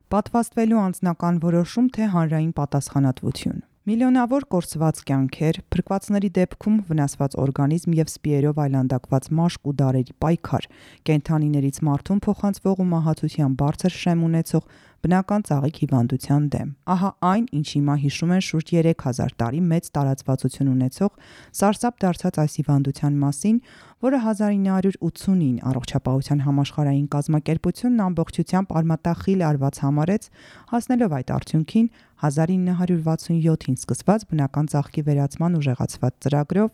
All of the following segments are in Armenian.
Պատվաստվելու անձնական որոշում, թե հանրային պատասխանատվություն։ Միլիոնավոր կորսված կյանքեր, փրկվածների դեպքում վնասված օրգանիզմ և սպիերով այլանդակված մաշկ ու դարերի պայքար, կենդանիներից մարդուն փոխանցվող ու մահացության բարձր շեմ ունեցող բնական ծաղիկ հիվանդության դեմ։ Ահա այն, ինչ հիմա հիշում են շուրջ 3000 տարի մեծ տարածվածություն ունեցող սարսափ դարձած այս հիվանդության մասին, որը 1989 Առողջապահության համաշխարհային կազմակերպությունն ամբողջությամբ արմատախիլ արված համարեց, հասնելով այդ արդյունքին 1967-ին սկսված բնական ծաղկի վերացման ուժեղացված ծրագրով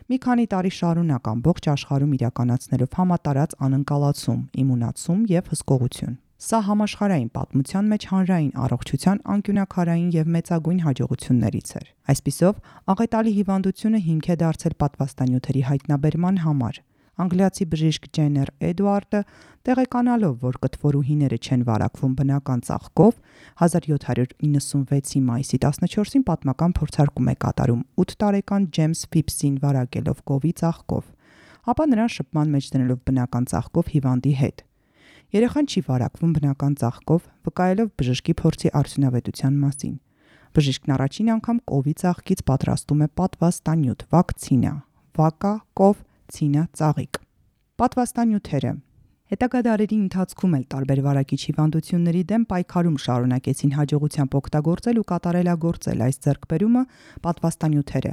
մի քանի տարի շարունակ ամբողջ աշխարհում իրականացնելով համատարած անկալացում, իմունացում և հսկողություն։ Սա համաշխարհային պատմության մեջ հանրային առողջության անկյունաքարային և մեծագույն հաջողություններից էր։ Այսպիսով, աղետալի հիվանդությունը հիմք է դարձել պատվաստանյութերի հայտնաբերման համար։ Անգլիացի բժիշկ Ջեններ Էդուարդը, տեղեկանալով, որ կտվորուհիները չեն վարակվում բնական ծաղկով, 1796-ի մայիսի 14-ին պատմական փորձարկում է կատարում 8 տարեկան Ջեյմս Ֆիփսին վարակելով կովի ծաղկով, ապա նրան շփման մեջ դնելով բնական ծաղկով հիվանդի հետ։ Երեխան չի վարակվում բնական ծաղկով, վկայելով բժշկի փորձի արդյունավետության մասին։ Բժիշկն առաջին անգամ կովի ծաղկից պատրաստում է պատվաստանյութ՝ վակցինա, վակա, կով, ցինա, ծաղիկ։ Պատվաստանյութերը հետագա դարերի ընթացքում էլ տարբեր վարակիչ հիվանդությունների դեմ պայքարում շարունակեցին հաջողությամբ օգտագործել ու կատարելագործել այս ձեռքբերումը պատվաստանյութերը,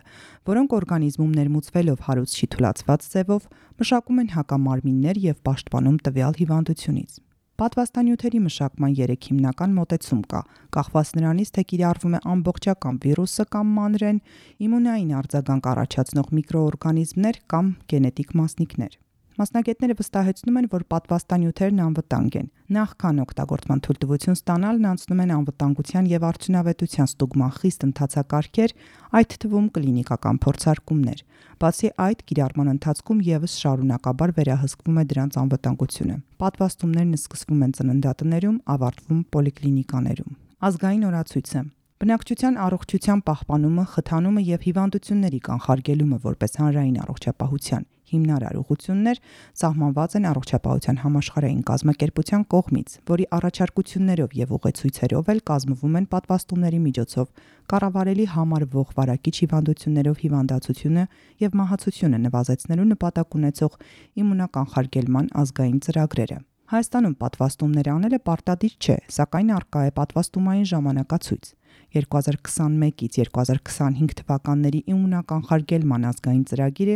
որոնք օրգանիզմում ներմուծվելով հարուցչի թուլացված ձևով մշակում են հակամարմիններ և պաշտպանում տվյալ հիվանդությունից։ Պատվաստանյութերի մշակման 3 հիմնական մոտեցում կա, կախված նրանից, թե կիրառվում է ամբողջական վիրուսը կամ մանրեն, իմունային արձագանք առաջացնող միկրոօրգանիզմներ կամ գենետիկ մասնիկներ։ Մասնագետները վստահեցնում են, որ պատվաստանյութերն անվտանգ են։ Նախքան օգտագործման թույլտվություն ստանալն անցնում են անվտանգության և արդյունավետության ստուգման խիստ ընթացակարգեր, այդ թվում կլինիկական փորձարկումներ։ Բացի այդ, կիրառման ընթացքում ևս շարունակաբար վերահսկվում է դրանց անվտանգությունը։ Պատվաստումներն սկսվում են ծննդատներում, ավարտվում պոլիկլինիկաներում։ Ազգային օրացույցը բնակչության առողջության պահպանումը, խթանումը և հիվանդությունների կանխարգելումը որպես հանրային առողջապահության հիմնարար ուղղություններ սահմանված են Առողջապահության համաշխարհային կազմակերպության կողմից, որի առաջարկություններով և ուղեցույցերով էլ կազմվում են պատվաստումների միջոցով կառավարելի համարվող վարակիչ հիվանդություններով հիվանդացությունը և մահացությունը նվազեցնելու նպատակ ունեցող իմունականխարգելման ազգային ծրագրերը։ Հայաստանում պատվաստումներ անելը պարտադիր չէ, սակայն առկա է պատվաստումային ժամանակացույց։ 2021-ից 2025 թվականների իմունականխարգելման ազգային ծրագիրը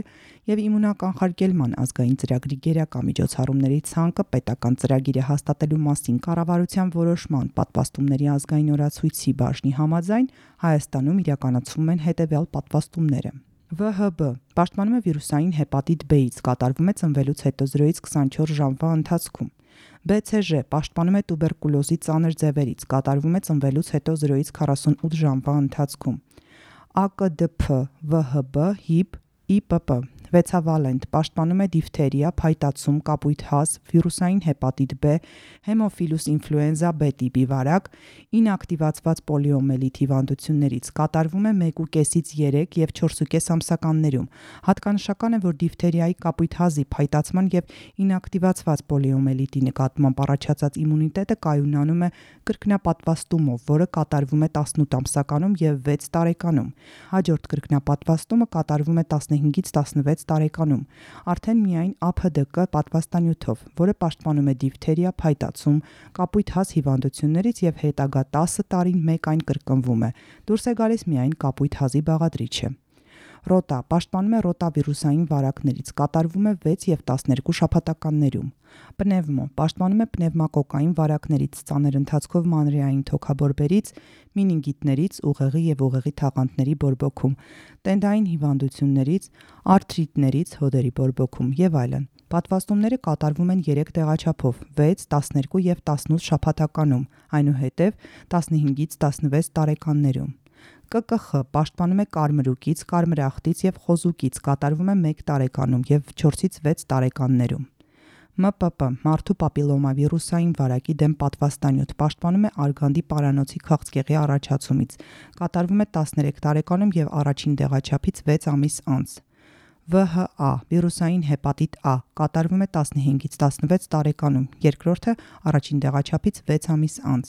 և իմունականխարգելման ազգային ծրագրի գերակա միջոցառումների ցանկը պետական ծրագիրը հաստատելու մասին կառավարության որոշման պատվաստումների ազգային օրացույցի բաժնի համաձայն Հայաստանում իրականացվում են հետևյալ պատվաստումները։ ՎՀԲ պաշտպանում է վիրուսային հեպատիտ B-ից, կատարվում է ծնվելուց հետո 0-ից 24 ժամվա ընթացքում։ BCG պաշտպանում է տուբերկուլոզի ծանր ձևերից, կատարվում է ծնվելուց հետո 0-ից 48 ժամվա ընթացքում։ ԱԿԴՓ ՎՀԲ HIB IPP վեցավալենտ պաշտպանում է դիֆթերիա, փայտացում, կապույտ հազ, վիրուսային հեպատիտ B, հեմոֆիլուս ինֆլուենզա B տիպի վարակ, ինակտիվացված պոլիոմելիտ հիվանդություններից, կատարվում է 1,5-ից 3 և 4,5 ամսականներում։ Հատկանշական է, որ դիֆթերիայի, կապույտ հազի, փայտացման և ինակտիվացված պոլիոմելիտի նկատմամբ առաջացած իմունիտետը կայունանում է կրկնապատվաստումով, որը կատարվում է 18 ամսականում և 6 տարեկանում։ Հաջորդ կրկնապատվաստումը կատարվում է 15-ից 16 տարեկանում, արդեն միայն ԱՓԴԿ պատվաստանյութով, որը պաշտպանում է դիֆթերիա, փայտացում, կապույտ հազ հիվանդություններից և հետագա 10 տարին մեկ այն կրկնվում է, դուրս է գալիս միայն կապույտ հազի բաղադրիչը։ Ռոտա պաշտպանում է ռոտավիրուսային վարակներից, կատարվում է 6 և 12 շաբաթականներում։ Պնևմո պաշտպանում է պնևմակոկային վարակներից, ծանր ընթացքով մանրեային թոքաբորբերից, մինինգիտներից, ուղեղի և ուղեղի թաղանթների բորբոքում, տենդային հիվանդություններից, արթրիտներից, հոդերի բորբոքում եւ այլն։ Պատվաստումները կատարվում են 3 տեղաչափով՝ 6, 12 և 18 շաբաթականում, այնուհետև 15-ից 16 տարեկաններում։ ԿԿԽ պաշտպանում է կարմրուկից, կարմրախտից և խոզուկից, կատարվում է 1 տարեկանում և 4-ից 6 տարեկաններում։ ՄՊՊ մարդու պապիլոմավիրուսային վարակի դեմ պատվաստանյութ պաշտպանում է արգանդի պարանոցի քաղցկեղի առաջացումից, կատարվում է 13 տարեկանում և առաջին տեղաչափից 6 ամիս անց։ ՎՀԱ վիրուսային հեպատիտ A կատարվում է 15-ից 16 տարեկանում, երկրորդը առաջին տեղաչափից 6 ամիս անց։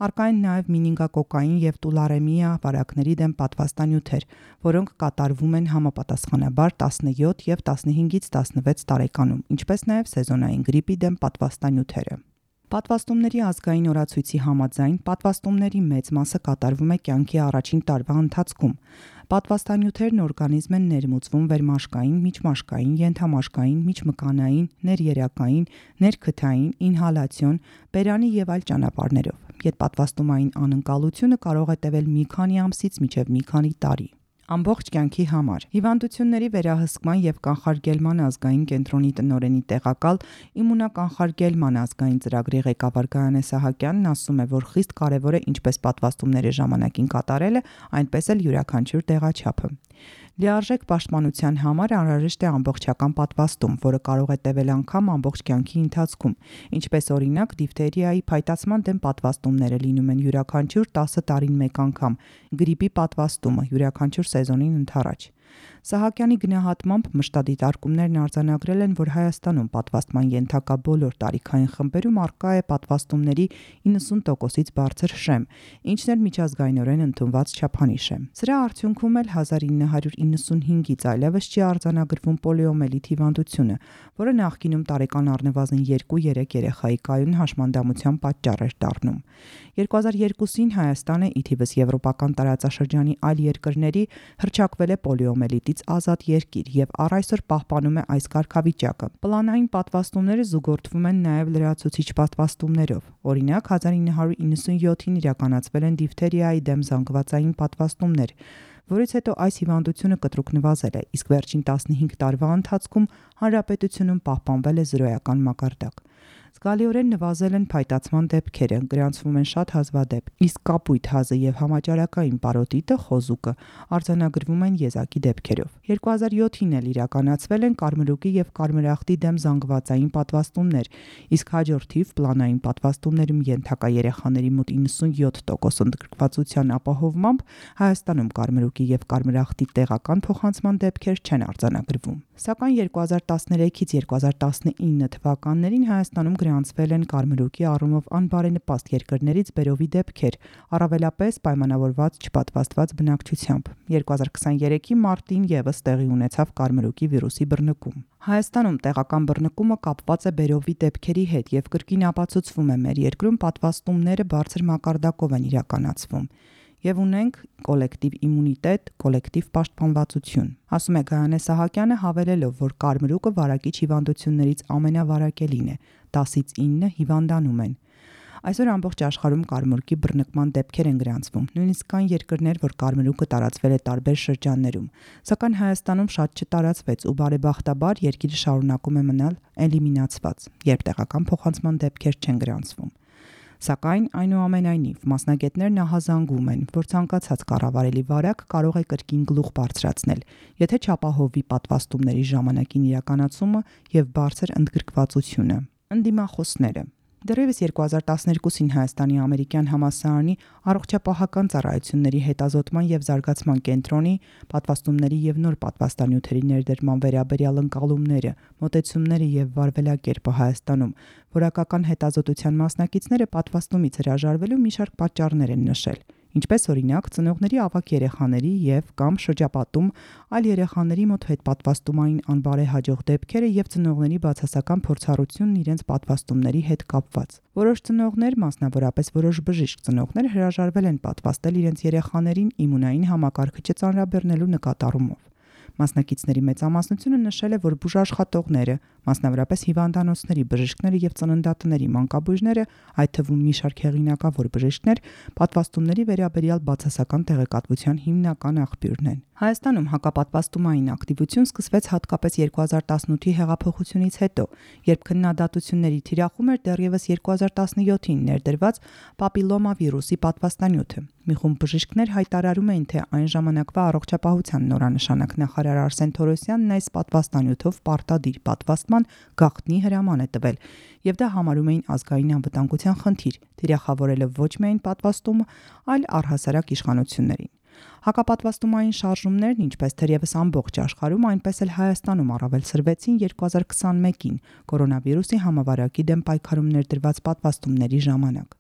Առկա են նաև մինինգակոկային եւ տուլարեմիա վարակների դեմ պատվաստանյութեր, որոնք կատարվում են համապատասխանաբար 17 եւ 15-ից 16 տարեկանում, ինչպես նաև սեզոնային գրիպի դեմ պատվաստանյութերը։ Պատվաստումների ազգային օրացույցի համաձայն պատվաստումների մեծ մասը կատարվում է կյանքի առաջին տարվա ընթացքում։ Պատվաստանյութերն օրգանիզմ են ներմուծվում վերմաշկային, միջմաշկային, ենթամաշկային, միջմկանային, ներերակային, ներքթային, ինհալացիոն, բերանի եւ այլ ճանապարհներով։ Ետպատվաստումային անընկալությունը կարող է տևել մի քանի ամսից մինչև մի քանի տարի։ Ամբողջ կյանքի համար հիվանդությունների վերահսկման եւ կանխարգելման ազգային կենտրոնի տնօրենի տեղակալ իմունականխարգելման ազգային ծրագրի ղեկավար Գայանե Սահակյանն ասում է, որ խիստ կարեւոր է ինչպես պատվաստումների ժամանակին կատարելը, այնպես էլ յուրաքանչյուր տեղաչափը։ Լիարժեք պաշտպանության համար անհրաժեշտ է ամբողջական պատվաստում, որը կարող է տևել անգամ ամբողջ կյանքի ընթացքում, ինչպես օրինակ դիֆթերիայի փայտացման դեմ պատվաստումները լինում են յուրաքանչյուր 10 տարին մեկ անգամ, գրիպի պատվաստումը յուրաքանչյուր սեզոնին ընդառաջ։ Սահակյանի գնահատմամբ մշտադիտարկումներն արձանագրել են, որ Հայաստանում պատվաստման ենթակա բոլոր տարիքային խմբերում առկա է պատվաստումների 90%-ից բարձր շեմ, ինչն էլ միջազգայինորեն ընդունված չափանիշ է։ Սրա արդյունքում էլ 1995-ից այլևս չի արձանագրվում պոլիոմելիտ հիվանդությունը, որը նախկինում տարեկան առնվազն 2-3 երեխայի կայուն հաշմանդամության պատճառ էր դառնում։ 2002-ին Հայաստանը ի թիվս եվրոպական տարածաշրջանի այլ երկրների հռչակվել է պոլիոմելիտից ազատ երկիր եւ առ այսօր պահպանում է այս կարգավիճակը։ Պլանային պատվաստումները զուգորդվում են նաև լրացուցիչ պատվաստումներով։ Օրինակ 1997-ին իրականացվել են դիֆթերիայի դեմ զանգվածային պատվաստումներ, որից հետո այս հիվանդությունը կտրուկ նվազել է, իսկ վերջին 15 տարվա ընթացքում հանրապետությունում պահպանվել է զրոյական մակարդակ։ Զգալիորեն նվազել են փայտացման դեպքերը, գրանցվում են շատ հազվադեպ, իսկ կապույտ հազը եւ համաճարակային պարոտիտը խոզուկը արձանագրվում են եզակի դեպքերով։ 2007-ին էլ իրականացվել են կարմրուկի եւ կարմրախտի դեմ զանգվածային պատվաստումներ, իսկ հաջորդ թիվ պլանային պատվաստումներում ենթակա երեխաների մոտ 97% ընդգրկվածության ապահովմամբ Հայաստանում կարմրուկի եւ կարմրախտի տեղական փոխանցման դեպքեր չեն արձանագրվում։ Սակայն 2013-ից 2019 թվականներին Հայաստանում գրանցվել են կարմրուկի առումով անբարենպաստ երկրներից բերովի դեպքեր, առավելապես պայմանավորված չպատվաստված բնակչությամբ։ 2023-ի մարտին եւս տեղի ունեցավ կարմրուկի վիրուսի բռնկում։ Հայաստանում տեղական բռնկումը կապված է բերովի դեպքերի հետ եւ կրկին ապացուցվում է մեր երկրում պատվաստումները բարձր մակարդակով են իրականացվում եւ ունենք կոլեկտիվ իմունիտետ, կոլեկտիվ պաշտպանվածություն։ Ասում է Գայանե Սահակյանը, հավելելով, որ կարմրուկը վարակիչ հիվանդություններից ամենավարակելին է, 10-ից 9 հիվանդանում են։ Այսօր ամբողջ աշխարհում կարմրուկի բռնկման դեպքեր են գրանցվում, նույնիսկ կան երկրներ, որ կարմրուկը տարածվել է տարբեր շրջաններում, սակայն Հայաստանում շատ չտարածվեց ու բարեբախտաբար երկիրը շարունակում է մնալ էլիմինացված, երբ տեղական փոխանցման դեպքեր չեն գրանցվում։ Սակայն այնուամենայնիվ մասնագետներն ահազանգում են, որ ցանկացած կառավարելի վարակ կարող է կրկին գլուխ բարձրացնել, եթե չապահովի պատվաստումների ժամանակին իրականացումը եւ բարձր ընդգրկվածությունը։ Ընդդիմախոսները Դեռևս 2012-ին Հայաստանի ամերիկյան համալսարանի առողջապահական ծառայությունների հետազոտման եւ զարգացման կենտրոնի պատվաստումների եւ նոր պատվաստանյութերի ներդրման վերաբերյալ ընկալումները, մոտեցումները եւ վարվելակերպը Հայաստանում որակական հետազոտության մասնակիցները պատվաստումից հրաժարվելու մի շարք պատճառներ են նշել, ինչպես օրինակ ծնողների ավագ երեխաների եւ կամ շրջապատում այլ երեխաների մոտ հետպատվաստումային անբարեհաջող դեպքերը եւ ծնողների բացասական փորձառությունն իրենց պատվաստումների հետ կապված։ Որոշ ծնողներ, մասնավորապես որոշ բժիշկ ծնողներ հրաժարվել են պատվաստել իրենց երեխաներին իմունային համակարգիչը ծանրաբեռնելու նկատառումով։ Մասնակիցների մեծամասնությունը նշել է, որ բուժաշխատողները, մասնավորապես հիվանդանոցների բժիշկները եւ ծննդատների մանկաբույժները, այդ թվում մի շարք հեղինակավոր բժիշկներ, պատվաստումների վերաբերյալ բացասական տեղեկատվության հիմնական աղբյուրն են։ Հայաստանում հակապատվաստումային ակտիվություն սկսվեց հատկապես 2018-ի հեղափոխությունից հետո, երբ քննադատությունների թիրախում էր դեռևս 2017-ին ներդրված պապիլոմա վիրուսի պատվաստանյութը։ Մի խումբ բժիշկներ հայտարարում էին, թե այն ժամանակվա առողջապահության նորանշանակ նախարար Արսեն Թորոսյանն այս պատվաստանյութով պարտադիր պատվաստման գաղտնի հրաման է տվել, եւ դա համարում էին ազգային անվտանգության խնդիր, թիրախավորելով ոչ միայն պատվաստումը, այլ առհասարակ իշխանություններին։ Հակապատվաստումային շարժումներն, ինչպես թերևս ամբողջ աշխարհում, այնպես էլ Հայաստանում առավել սրվեցին 2021-ին կորոնավիրուսի համավարակի դեմ պայքարում ներդրված պատվաստումների ժամանակ։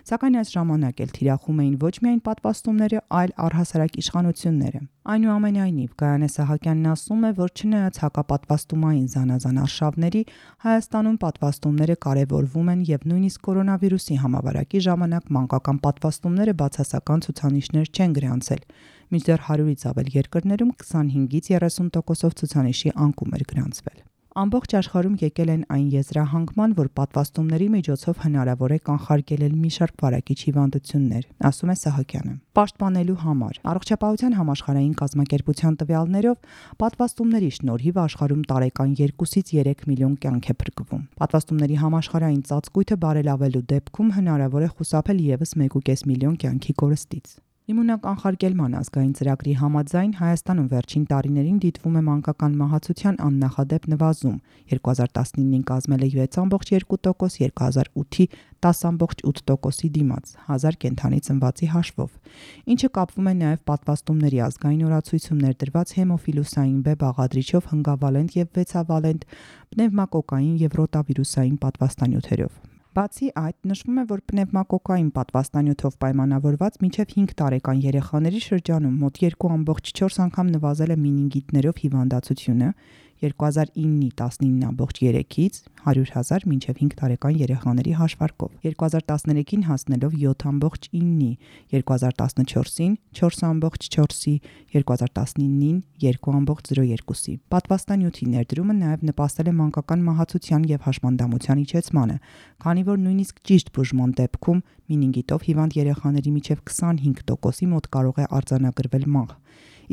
Սակայն այս ժամանակ էլ թիրախում էին ոչ միայն պատվաստումները, այլ առհասարակ իշխանությունները։ Այնուամենայնիվ, Գայանե Սահակյանն ասում է, որ չնայած հակապատվաստումային զանազան արշավների, Հայաստանում պատվաստումները կարևորվում են եւ նույնիսկ կորոնավիրուսի համավարակի ժամանակ մանկական պատվաստումները բացասական ցուցանիշներ չեն գրանցել, մինչդեռ 100-ից ավել երկրներում 25-ից 30% ցուցանիշի անկում էր գրանցվել։ Ամբողջ աշխարհում եկել են այն եզրահանգման, որ պատվաստումների միջոցով հնարավոր է կանխարգելել մի շարք վարակիչ հիվանդություններ, ասում է Սահակյանը։ Պաշտպանելու համար Առողջապահության համաշխարհային կազմակերպության տվյալներով պատվաստումների շնորհիվ աշխարհում տարեկան 2-ից 3 միլիոն կյանք է փրկվում։ Պատվաստումների համաշխարհային ծածկույթը բարելավելու դեպքում հնարավոր է խուսափել ևս 1.5 միլիոն կյանքի կորստից։ Իմունոկանխարգելման ազգային ծրագրի համաձայն Հայաստանում վերջին տարիներին դիտվում է մանկական մահացության աննախադեպ նվազում, 2019-ին կազմել է 6.2%, 2008-ի 10.8%-ի դիմաց, 1000 կենդանի ծնվածի հաշվով, ինչը կապվում է նաև պատվաստումների ազգային օրացույցում ներդրված հեմոֆիլուսային B բաղադրիչով հնգավալենտ եւ վեցավալենտ պնևմակոկային եւ ռոտավիրուսային պատվաստանյութերով։ Բացի այդ, նշվում է, որ պնևմակոկային պատվաստանյութով պայմանավորված մինչև 5 տարեկան երեխաների շրջանում մոտ 2.4 անգամ նվազել է մենինգիտներով հիվանդացությունը 2009-ի 19.3-ից 100,000 մինչև 5 տարեկան երեխաների հաշվարկով, 2013-ին հասնելով 7.9-ի, 2014-ին 4.4-ի, 2019-ին 2.02-ի։ Պատվաստանյութի ներդրումը նաև նպաստել է մանկական մահացության և հաշմանդամության իջեցմանը, քանի որ նույնիսկ ճիշտ բուժման դեպքում մենինգիտով հիվանդ երեխաների միջև 25%-ի մոտ կարող է արձանագրվել մահ,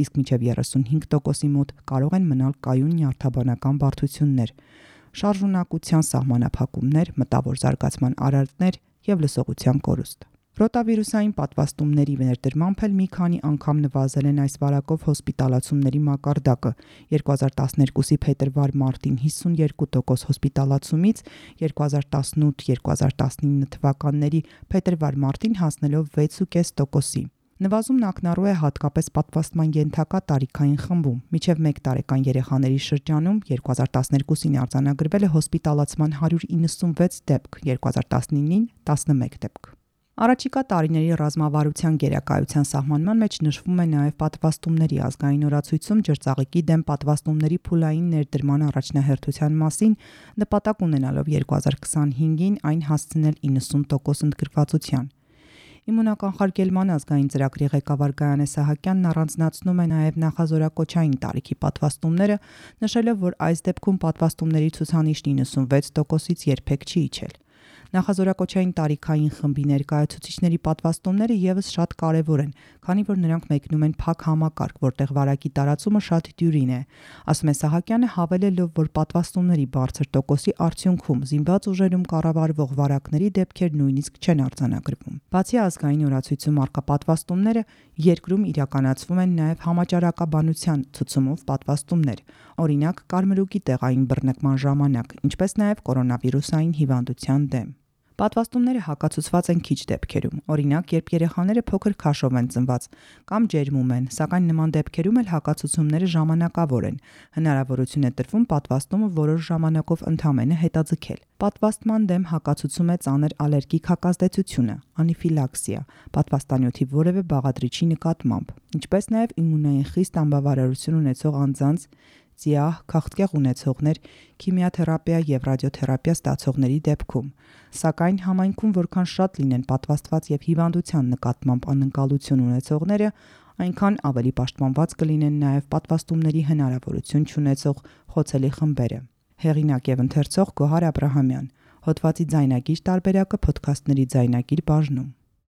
իսկ մինչև 35%-ի մոտ կարող են մնալ կայուն նյարդաբանական բարդություններ, շարժունակության սահմանափակումներ, մտավոր զարգացման արարքներ և լսողության կորուստ։ Ռոտավիրուսային պատվաստումների ներդրմամբ էլ մի քանի անգամ նվազել են այս վարակով հոսպիտալացումների մակարդակը, 2012-ի փետրվար-մարտին 52% հոսպիտալացումից 2018-2019 թվականների փետրվար-մարտին հասնելով 6.5%-ի։ Նվազումն ակնառու է հատկապես պատվաստման ենթակա տարիքային խմբում, մինչև 1 տարեկան երեխաների շրջանում 2012-ին արձանագրվել է հոսպիտալացման 196 դեպք, 2019-ին 11 դեպք։ Առաջիկա տարիների ռազմավարության գերակայության սահմանման մեջ նշվում է նաև պատվաստումների ազգային օրացույցում ջրծաղիկի դեմ պատվաստումների փուլային ներդրման առաջնահերթության մասին նպատակ ունենալով 2025-ին այն հասցնել 90% ընդգրկվածության։ Իմունոկանխարգելման ազգային ծրագրի ղեկավար Գայանե Սահակյանն առանձնացնում է նաև նախազորակոչային տարիքի պատվաստումները, նշելով, որ այս դեպքում պատվաստումների ցուցանիշն 96%-ից երբեք չի իջել։ Նախազորակոչային տարիքային խմբի ներկայացուցիչների պատվաստումները ևս շատ կարևոր են, քանի որ նրանք մեկնում են փակ համակարգ, որտեղ վարակի տարածումը շատ դյուրին է, ասում է Սահակյանը, հավելելով, որ պատվաստումների բարձր տոկոսի արդյունքում զինված ուժերում կառավարվող վարակների դեպքեր նույնիսկ չեն արձանագրվում։ Բացի ազգային օրացույցում առկա պատվաստումները, երկրում իրականացվում են նաև համաճարակաբանության ցուցումով պատվաստումներ, օրինակ կարմրուկի տեղային բռնկման ժամանակ, ինչպես նաև կորոնավիրուսային հիվանդության դեմ։ Պատվաստումները հակացուցված են քիչ դեպքերում, օրինակ, երբ երեխաները փոքր քաշով են ծնված կամ ջերմում են, սակայն նման դեպքերում էլ հակացուցումները ժամանակավոր են, հնարավորություն է տրվում պատվաստումը որոշ ժամանակով ընդամենը հետաձգել։ Պատվաստման դեմ հակացուցում է ծանր ալերգիկ հակազդեցությունը, անիֆիլաքսիա, պատվաստանյութի որևէ բաղադրիչի նկատմամբ, ինչպես նաև իմունային խիստ անբավարարություն ունեցող անձանց, ծիահ, քաղցկեղ ունեցողներ, քիմիաթերապիա և ռադիոթերապիա ստացողների դեպքում, սակայն համայնքում որքան շատ լինեն պատվաստված և հիվանդության նկատմամբ անընկալություն ունեցողները, այնքան ավելի պաշտպանված կլինեն նաև պատվաստումների հնարավորություն չունեցող խոցելի խմբերը։ Հեղինակ և ընթերցող Գոհար Աբրահամյան, հոդվածի ձայնագիր տարբերակը Փոդքասթների ձայնագիր բաժնում։